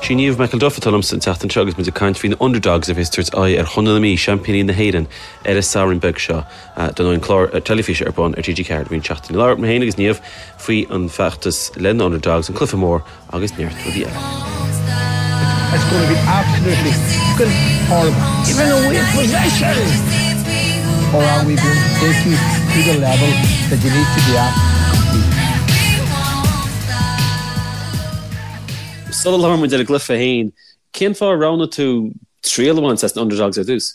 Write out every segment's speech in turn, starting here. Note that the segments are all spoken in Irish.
Sí Niamh McElduff atá liomsa an tseachtain seo agus muid ag caint faoi na Underdogs a bheas ag tabhairt aghaidh ar Chontae na Mí, seaimpíní na hÉireann, ar an Satharn beag seo. Dar ndóigh an clár teilifíse ar bun ar TG4 i rith na seachtaine. Labhair mé féin agus Niamh faoi an feachtas le na Underdogs, an cluiche mór agus neart rudaí eile. It's going to be absolutely fucking horrible. Giving away possession! Or are we going to take you to the level that you need to be at to compete? Sula labhrann muid ar an gcluiche féin, cén fáth ar roghnaigh tú triail a bhaint as na Underdogs ar dtús?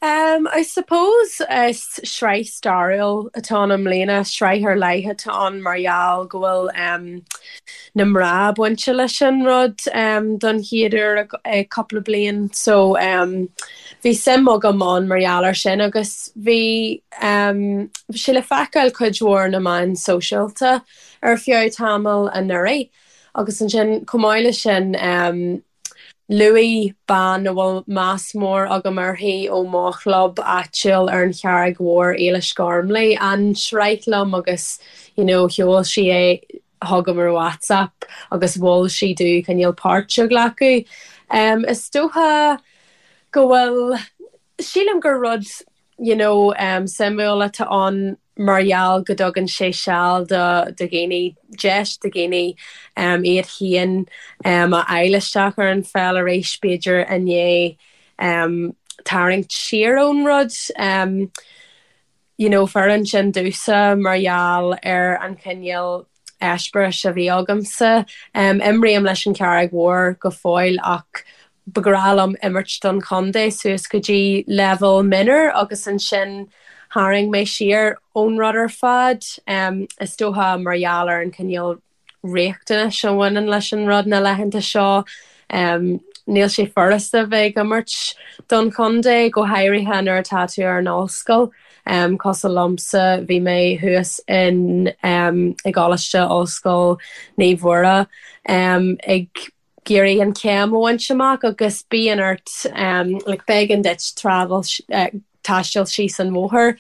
Um, I suppose is sraith stairiúil atá ann i mbliana, sraith ar leith atá ann mar gheall go bhfuil um, na mná bainte leis an rud um, don chéad uair i cúpla bliain. So um, bhí suim agam ann mar gheall ar sin agus bhí um, sé le feiceáil cuid mhór na meáin sóisialta ar feadh tamaill anuraidh agus ansin chomh maith leis sin luaigh bean a bhfuil meas mór agam uirthi ó mo chlub áitiúil ar an Charraig Mhór, Éilis Gormley, an tsraith liom agus you know sheol sí é chugam ar WhatsApp agus mhol sí domh cineál páirt a ghlacadh. Is dócha go bhfuil, sílim gur rud you know suimiúil atá ann mar gheall go dtugann sé seal do dhaoine, deis do dhaoine iad féin a fháil isteach ar an pheil arís b'fhéidir i ndiaidh tarraingt siar ón rud. You know fóireann sin domhsa mar gheall ar an chineál eispéiris a bhí agamsa. Imrím leis an Charraig Mhór go fóill ach ba ghnách liom imirt don chontae suas go dtí leibhéal mionúr agus ansin tharraing mé siar ón rud ar fad. Is dócha mar gheall ar an chineál riachtanais a bhaineann leis an rud na laethanta seo. Níl sé furasta bheith ag imirt don chontae, go háirithe nuair atá tú ar an ollscoil. Cosúil liomsa, bhí mé thuas in i gColáiste Ollscoil Naomh Mhuire ag iarraidh an chéim a bhaint amach agus bíonn ort like b'éigean duit travel taisteal síos an bhóthar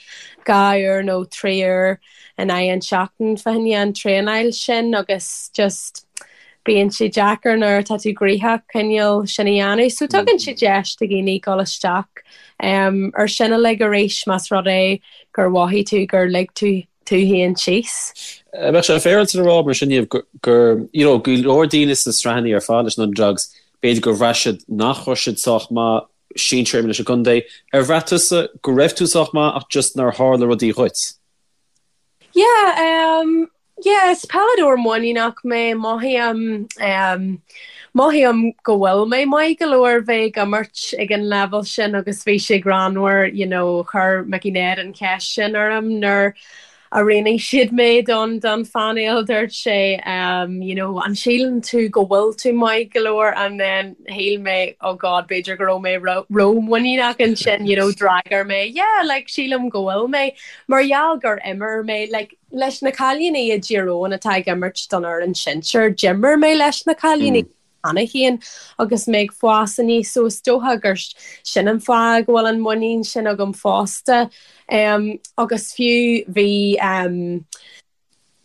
2 uair nó 3 uair in aghaidh an tseachtain fá choinne an traenáil sin agus just bíonn sé deacair nuair atá tú gnoitheach cineál sin a dhéanamh. So tugann sé deis do dhaoine dul isteach ar sin uilig arís más rud é gur mhothaigh tú gur lig tú tú féin síos. Bheadh sé féaráilte a rá mar sin Niamh gur you know go leor daoine sna sraitheanna ar fad leis na Underdogs b'fhéidir gur bhraith siad nach raibh siad sách maith sinsir leis an gcontae. Ar bhraith tusa go raibh tú sách maith ach just nár tharla rudaí dhuit? Yeah, um, yeah, is peileadóir muiníneach mé, mothaím, um, mothaím go bhfuil mé maith go leor bheith ag imirt ag an leibhéal sin agus bhí sé greannmhar, you know, chuir Mickey Ned an cheist sin orm nuair a roghnaigh siad mé don don phainéal, dúirt sé, um, you know, an síleann tú go bhfuil tú maith go leor and then shíl mé, oh God, b'fhéidir go raibh mé ró-mhuiníneach ansin, you know, d'fhreagair mé, yeah, like, sílim go bhfuil mé. Mar gheall gur imir mé, like, leis na cailíní i dTír Eoghain atá ag imirt don fhoireann sinsir, d'imir mé leis na cailíní cheana féin agus mé ag fás aníos so is dócha gur sin an fáth go bhfuil an muinín sin agam fosta. Agus fiú bhí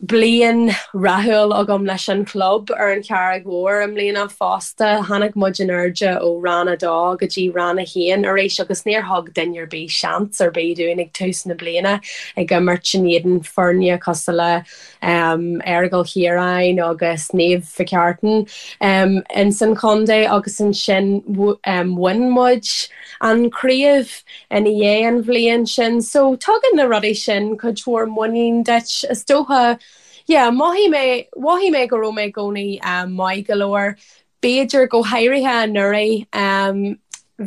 bliain rathúil agam leis an chlub ar an Charraig Mhór i mbliana fosta. Tháinig muid in airde ó Rang 2 go dtí Rang 1 arís agus níor thug duine ar bith seans ar bith dúinn ag tús na bliana ag imirt in éadan foirne cosúil le Aireagal Chiaráin agus Naomh Mhic Artain ins an chontae agus ansin bhain muid an chraobh ina dhiaidh an bhliain sin. So tugann na rudaí sin cuid mhór muinín duit is dócha. Yeah, mhothaigh mé, mhothaigh mé go raibh mé i gcónaí maith go leor. B'fhéidir go háirithe anuraidh,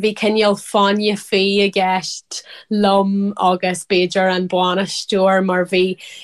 bhí cineál fáinne fí i gceist liom agus b'fhéidir an bainisteoir mar bhí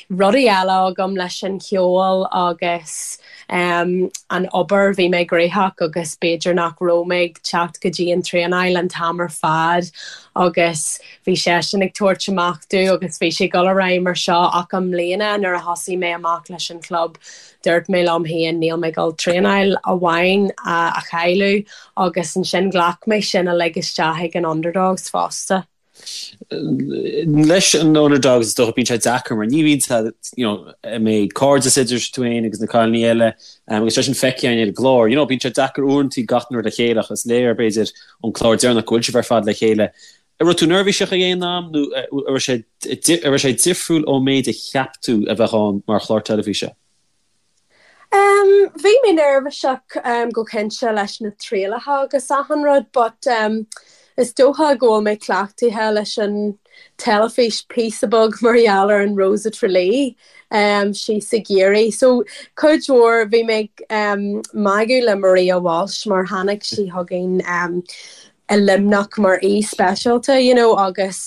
rudaí eile agam leis an cheol agus an obair, bhí mé gnóthach agus b'fhéidir nach raibh mé ag teacht go dtí an traenáil an t-am ar fad agus bhí seisean ag tabhairt amach domh agus bhí sé ag dul ar aghaidh mar seo ach i mbliana nuair a thosaigh mé amach leis an chlub Dúirt mé liom féin níl mé ag dul traenáil amháin a chailleadh agus ansin ghlac mé sin uilig isteach ag an Underdogs fosta. Leis an Underdogs is dócha bíonn sé deacair mar ní bhíonn sé you know an mbeidh cairdeas idir tú féin agus na cailíní eile agus sé sin feicthe againn ar an gclár. You know bíonn sé deacair uaireanta gach rud le chéile ach is léir b'fhéidir ón clár deireanach go bhfuil sibh ar fad le chéile. An raibh tú neirbhíseach ag aon am nó an raibh sé an raibh sé difriúil ón méid a cheap tú a bheadh ann mar chlár teilifíse? Bhí mé neirbhíseach go cinnte leis na trialacha agus achan rud but is dócha go bhfuil mé cleachtaithe leis an teilifís píosa beag mar gheall ar an Rose of Tralee síos i gCiarraí. So cuid mhór bhí mé ag magadh le Maria Walsh mar tháinig sí chugainn i Luimneach mar aoi speisialta you know agus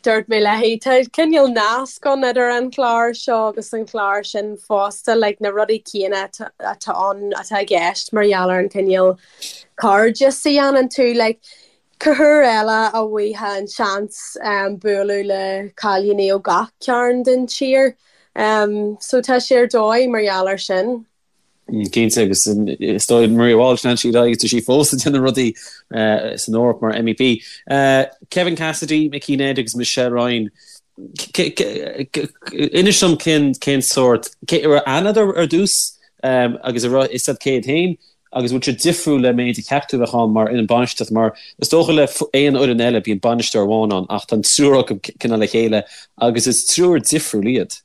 dúirt mé léi tá cineál nasc ann idir an clár seo agus an clár sin fosta like na rudaí céanna atá ann atá i gceist mar gheall ar an cineál cairdeas a dhéanann tú like cá huair eile a bhfaighfeá an seans bualadh le cailíní ó gach cearn den tír so tá sé ar dóigh mar gheall ar sin. Cinnte, agus is dóigh Maria Walsh, lean sí ar aghaidh agus tá sí fós ag déanamh rudaí san Eoraip mar MEP. Kevin Cassidy, Mickey Ned agus Michelle Ryan, inis dom cén cén sórt, cé raibh aithne agat ar dtús agus an raibh fhios agat cé hiad féin agus bhfuil siad difriúil le méid a cheap tú a bheadh ann mar fhoireann bainistíochta mar is dócha le aon fhoireann eile bíonn bainisteoir amháin ann ach tá an triúr acu cineál le chéile agus is triúr difriúil iad.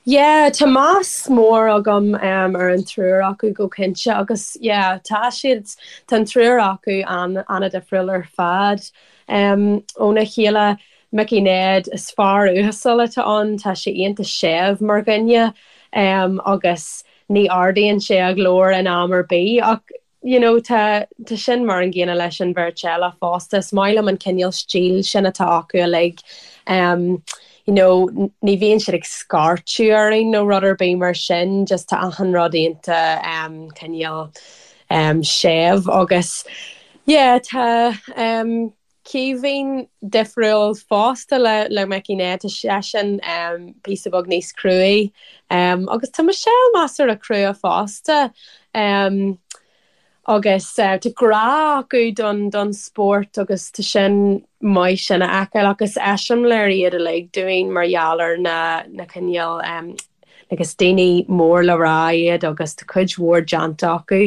Yeah, tá meas mór agam ar an triúr acu go cinnte agus yeah, tá siad, tá an triúr acu an-difriúil ar fad óna chéile. Mickey Ned, is fear uasal atá ann, tá sé iontach séimh mar dhuine agus ní ardaíonn sé a ghlór in am ar bith ach you know tá tá sin mar an gcéanna leis an bheirt eile fosta. Is maith liom an cineál stíl sin atá acu uilig. Um, you know, ní bhíonn siad ag scairteadh orainn nó rud ar bith mar sin, just tá achan rud iontach um, cineál um, séimh agus yeah, tá um, Caoimhín difriúil fosta le le Mickey Ned, tá seisean píosa beag níos cruaí agus tá Michelle measartha crua fosta agus tá grá acu don don spórt agus tá sin maith sin a fheiceáil agus eiseamláir iad uilig dúinn mar gheall ar na na cineál Agus daoine mór le rá iad agus tá cuid mhór déanta acu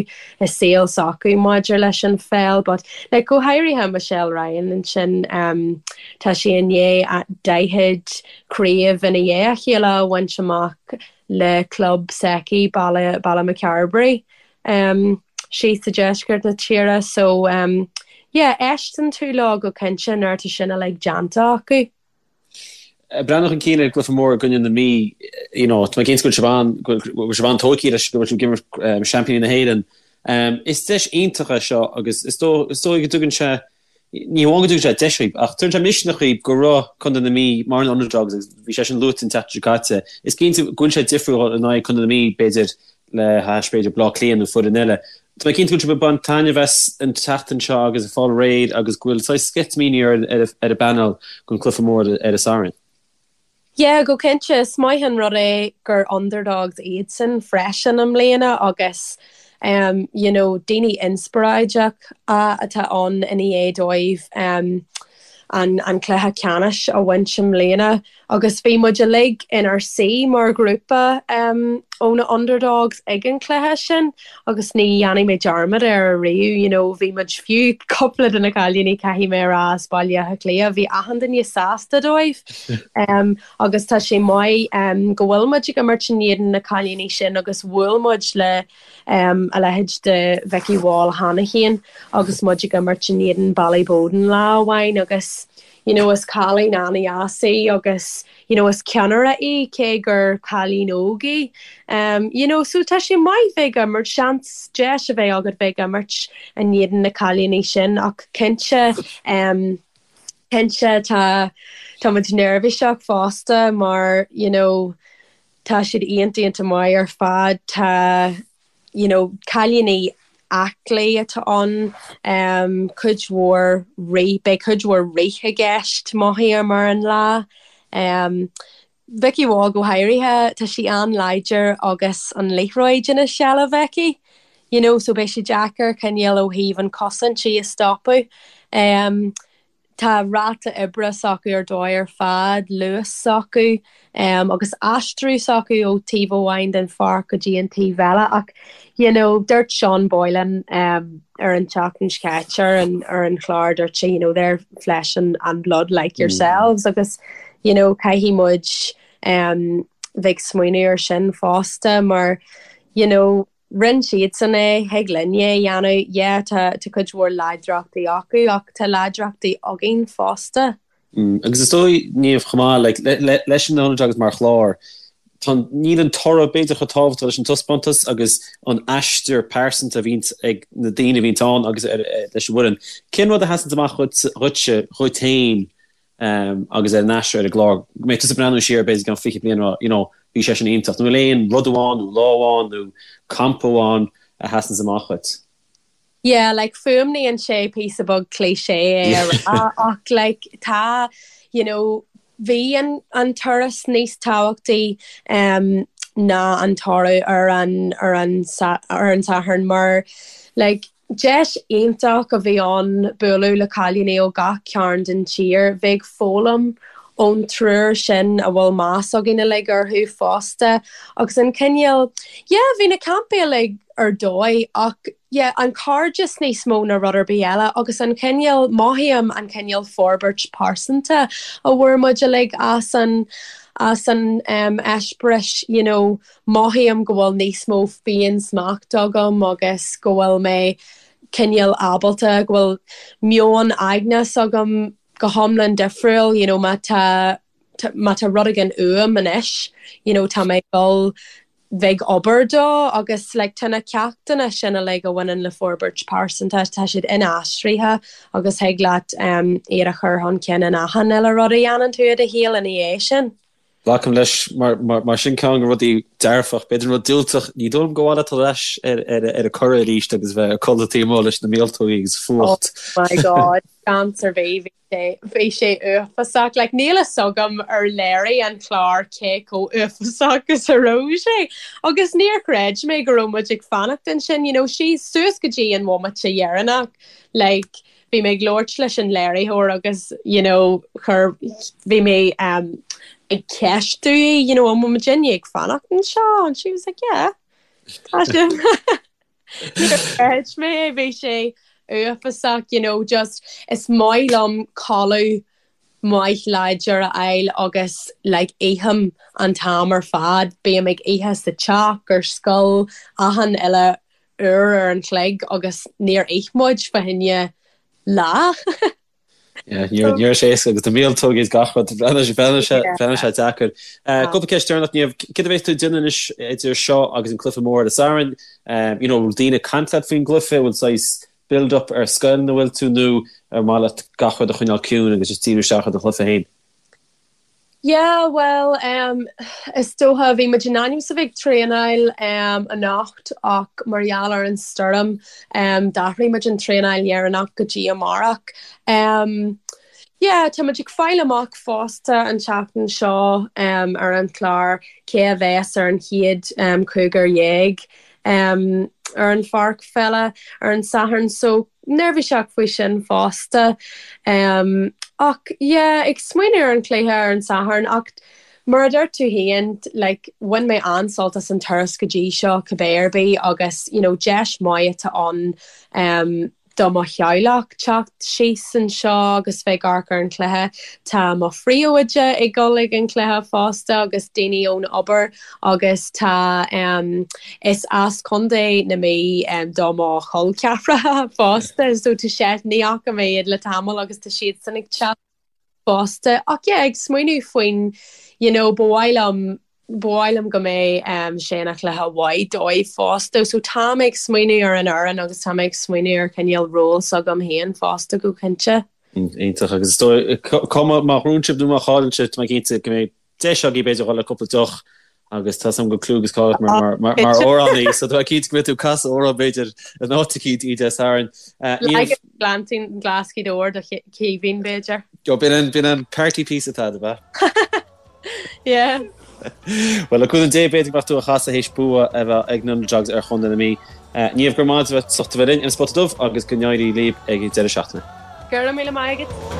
i saol s'acu maidir leis an pheil but like go háirithe Michelle Ryan ansin tá sí i ndiaidh 40 craobh ina dhiaidh a chéile a bhaint amach le club s'aici Baile Ballymacarbry síos i deisceart na tíre so yeah éisteann tú leo go cinnte nuair atá sin uilig déanta acu. Breathnú chun cinn ar an gcluiche mór i gcoinne na Mí, you know, tá mé cinnte go bhfuil sibh an, go bhfuil sibh an-tógtha leis, go bhfuil sibh ag imirt seaimpíní na hÉireann. Is deis iontach é seo agus is dóigh, is dóigh go dtugann sé, ní hamháin go dtugann sé deis dhaoibh, ach tugann sé misneach dhaoibh go raibh Contae na Mí mar an underdogs agus bhí sé sin luaite an tseachtain seo caite. Is cinnte go bhfuil sé difriúil in aghaidh Contae na Mí, b'fhéidir, le hais b'fhéidir Bleá Cliath nó foireann eile. Tá mé cinnte go bhfuil sibh ag baint taitneamh as an tseachtain seo agus ag fáil réidh agus go bhfuil saghas sceitimíní ar ar an bpainéal don cluiche mór ar an Satharn. Yeah, go cinnte. Is maith an rud é gur underdogs iadsan freisin i mbliana agus um, you know, daoine inspioráideach atá ann i ndiaidh dóibh um, an, an cluiche ceannais a bhaint i mbliana. Agus bhí muid uilig inár suí mar ghrúpa ó na Underdogs ag an chluiche sin agus ní dhéanfaidh mé dearmad air ariamh, you know, bhí muid, fiú cúpla de na cailíní, caithfidh mé a rá, as Baile Átha Cliath, bhí achan duine sásta dóibh. Agus tá sé maith go bhfuil muid ag imirt in éadan na cailíní sin agus bhuail muid le a leithéid de Vikki Wall cheana féin agus muid ag imirt in éadan Ballyboden lá amháin agus you know is cailín an-dheas í agus you know is ceannaire í cé gur cailín óg í um you know so tá sé maith bheith ag imirt seans deis a bheith agat bheith ag imirt in éadan na cailíní sin ach cinnte um cinnte tá tá muid neirbhíseach fosta mar you know tá siad iontach iontach maith ar fad tá you know, cailíní aclaí atá ann, cuid mhór rith, beidh cuid mhór rith i gceist, mothaím ar an lá. Vikki Wall go háirithe, tá sí an-láidir agus an liathróid ina seilbh aici, you know, so beidh sé deacair cineál ó thaobh an chosaint í a stopadh. Tá ráta oibre s'acu ar dóigh ar fad, luas s'acu agus aistriú s'acu ó taobh amháin den pháirc go dtí an taobh eile ach you know dúirt Sean Boylan ar an tseachtain seo caite ar an ar an chlár dúirt sé you know they're flesh and, and blood like yourselves agus you know caithfidh muid bheith ag smaoineamh ar sin fosta mar you know Rinne siadsan é, thig linne é a dhéanamh. Yeah, tá tá cuid mhór láidreachtaí acu ach tá láidreachtaí againn fosta. Agus is dóigh, Niamh, chomh maith, like, leis an Underdogs mar chlár, tá, níl an toradh b'fhéidir chomh tábhachtach leis an taispeántas agus an aistear pearsanta a bhíonns ag na daoine a bhíonns ann agus leis an bhfoireann. Cén rud a sheasanns amach dhuitse, dhuit féin agus ar an aistear ar an gclár, go mbeidh tusa ag breathnú siar b'fhéidir i gceann 20 bliain a rá, you know, bhí sé sin iontach. Nó bhfuil aon rud amháin nó lá amháin nó campa amháin a sheasanns amach dhuit? Yeah, like fuaimníonn sé píosa beag cliché é a rá ach like tá, you know, bhí an an turas níos tábhachtaí um, ná an toradh ar an ar an ar an Satharn mar like Deis iontach a bhí ann bualadh le cailíní ó gach cearn den tír, bheith ag foghlaim ón triúr sin a bhfuil meas againn uilig orthu fosta agus an cineál, yeah, bhí na campaí uilig ar dóigh ach yeah, an cairdeas níos mó ná rud ar bith eile agus an cineál, mothaím an cineál forbairt pearsanta a bhfuair muid uilig as an, as an eispéireas, you know. Mothaím go bhfuil níos mó féin-smacht agam agus go bhfuil mé cineál ábalta, go bhfuil meon aigne s'agam go hiomlán difriúil, you know má tá, má tá rud éigin uaim anois, you know tá mé ag dul bheith ag obair dó agus like tá na ceachtanna sin uilig a bhaineann le forbairt pearsanta, tá siad inaistrithe agus thig leat iad a chur chun cinn in achan uile rud a dhéanann tú i do shaol ina dhiaidh sin. Glacaim leis mar sin ceann de na rudaí dearfach, b'fhéidir an rud diúltach, ní dóigh liom gur mhaith leat dul ar ais ar an Curragh arís agus bheith ag codladh taobh amuigh leis na míoltógaí agus fuacht. Oh my God, seans ar bith, bhí sé, bhí sé uafásach. Like níl fhios agam ar léirigh an clár cé chomh uafásach is a raibh sé. Agus níor chreid mé go raibh muid ag fanacht ansin, you know, síos suas go dtí an bhomaite dheireanach, like, Bhí mé ag labhairt leis an léiritheoir agus you know chuir, bhí mé um ag ceistiú í you know an bhfuil muidinne ag fanacht anseo and she was like yeah tá sibh. Níor chreid mé é, bhí sé uafásach you know just is maith liom codladh maith láidir a fháil agus like ithim an t-am ar fad, bím ag ithe sa teach, ar scoil, achan uile uair ar an chloig agus níor ith muid fá choinne lá. Yeah, ní raibh sé éasca agus na míoltógaí is gach rud, bhreathnaigh sé deacair. Cúpla ceist deireanach, Niamh, céard a bheas tú ag déanamh anois idir seo agus an cluiche mór ar an Satharn? You know, bhfuil daoine ag caint leat faoin gcluiche, bhfuil saghas build up ar scoil ina bhfuil tú nó ar mhaith leat gach rud a choinneáil ciúin agus just díriú isteach ar do chluiche féin? Yeah, bhuel, em, is dócha, bhí muid in ainm is a bheith ag traenáil, em, anocht ach mar gheall ar an stoirm, em, d'athraigh muid an traenáil dheireanach go dtí amárach. Em, yeah, tá muid ag fáil amach fosta an tseachtain seo, em, ar an chlár cé a bheas ar an chéad, em, chúigear dhéag, em, ar an pháirc pheile ar an Satharn so, neirbhíseach faoi sin fosta. Ach yeah, ag smaoineamh ar an chluiche ar an Satharn ach mar a dúirt tú féin, like, bhain mé an-sult as an turas go dtí seo cibé ar bith agus you know deis maith atá ann do mo theaghlach teacht síos anseo agus bheith ag amharc ar an chluiche. Tá mo phríomhoide ag dul ag an chluiche fosta agus daoine ón obair agus tá Is as Contae na Mí do mo chol ceathracha fosta so tá sé, ní fhaca mé iad le tamall agus tá siadsan ag teacht fosta. Ach yeah, ag smaoineamh faoin, you know, ba mhaith liom, ba mhaith liom go mbeidh sé ina chluiche mhaith dóibh fosta. So tá mé ag smaoineamh ar an fhoireann agus tá mé ag smaoineamh ar chineál ról s'agam féin fosta go cinnte. Iontach agus is dóigh, cuma má ghnóthaíonn sibh nó má chailleann sibh, tá mé cinnte go mbeidh deis agaibh b'fhéidir dhul le cúpla deoch agus tá 's agam go bhfuil cliú agus cáil ort mar mar amhránaí so tá mé cinnte go mbeidh tú ag casadh amhrán b'fhéidir in áit eicínt Dé Sathairn. Leagan Gleanntín Glas Ghaoth Dobhair do Chaoimhín b'fhéidir. B'in an b'in an party piece atá ab ea? Yeah. Bhuel le cúnamh Dé b'fhéidir go mbeadh tú á chasadh théis bua a bheith ag na Underdogs ar Chontae na Mí. Niamh go raibh maith agat as ucht a bheith linn ar an Spota Dubh agus go n-éirí libh ag an deireadh seachtaine. Go raibh míle maith agat.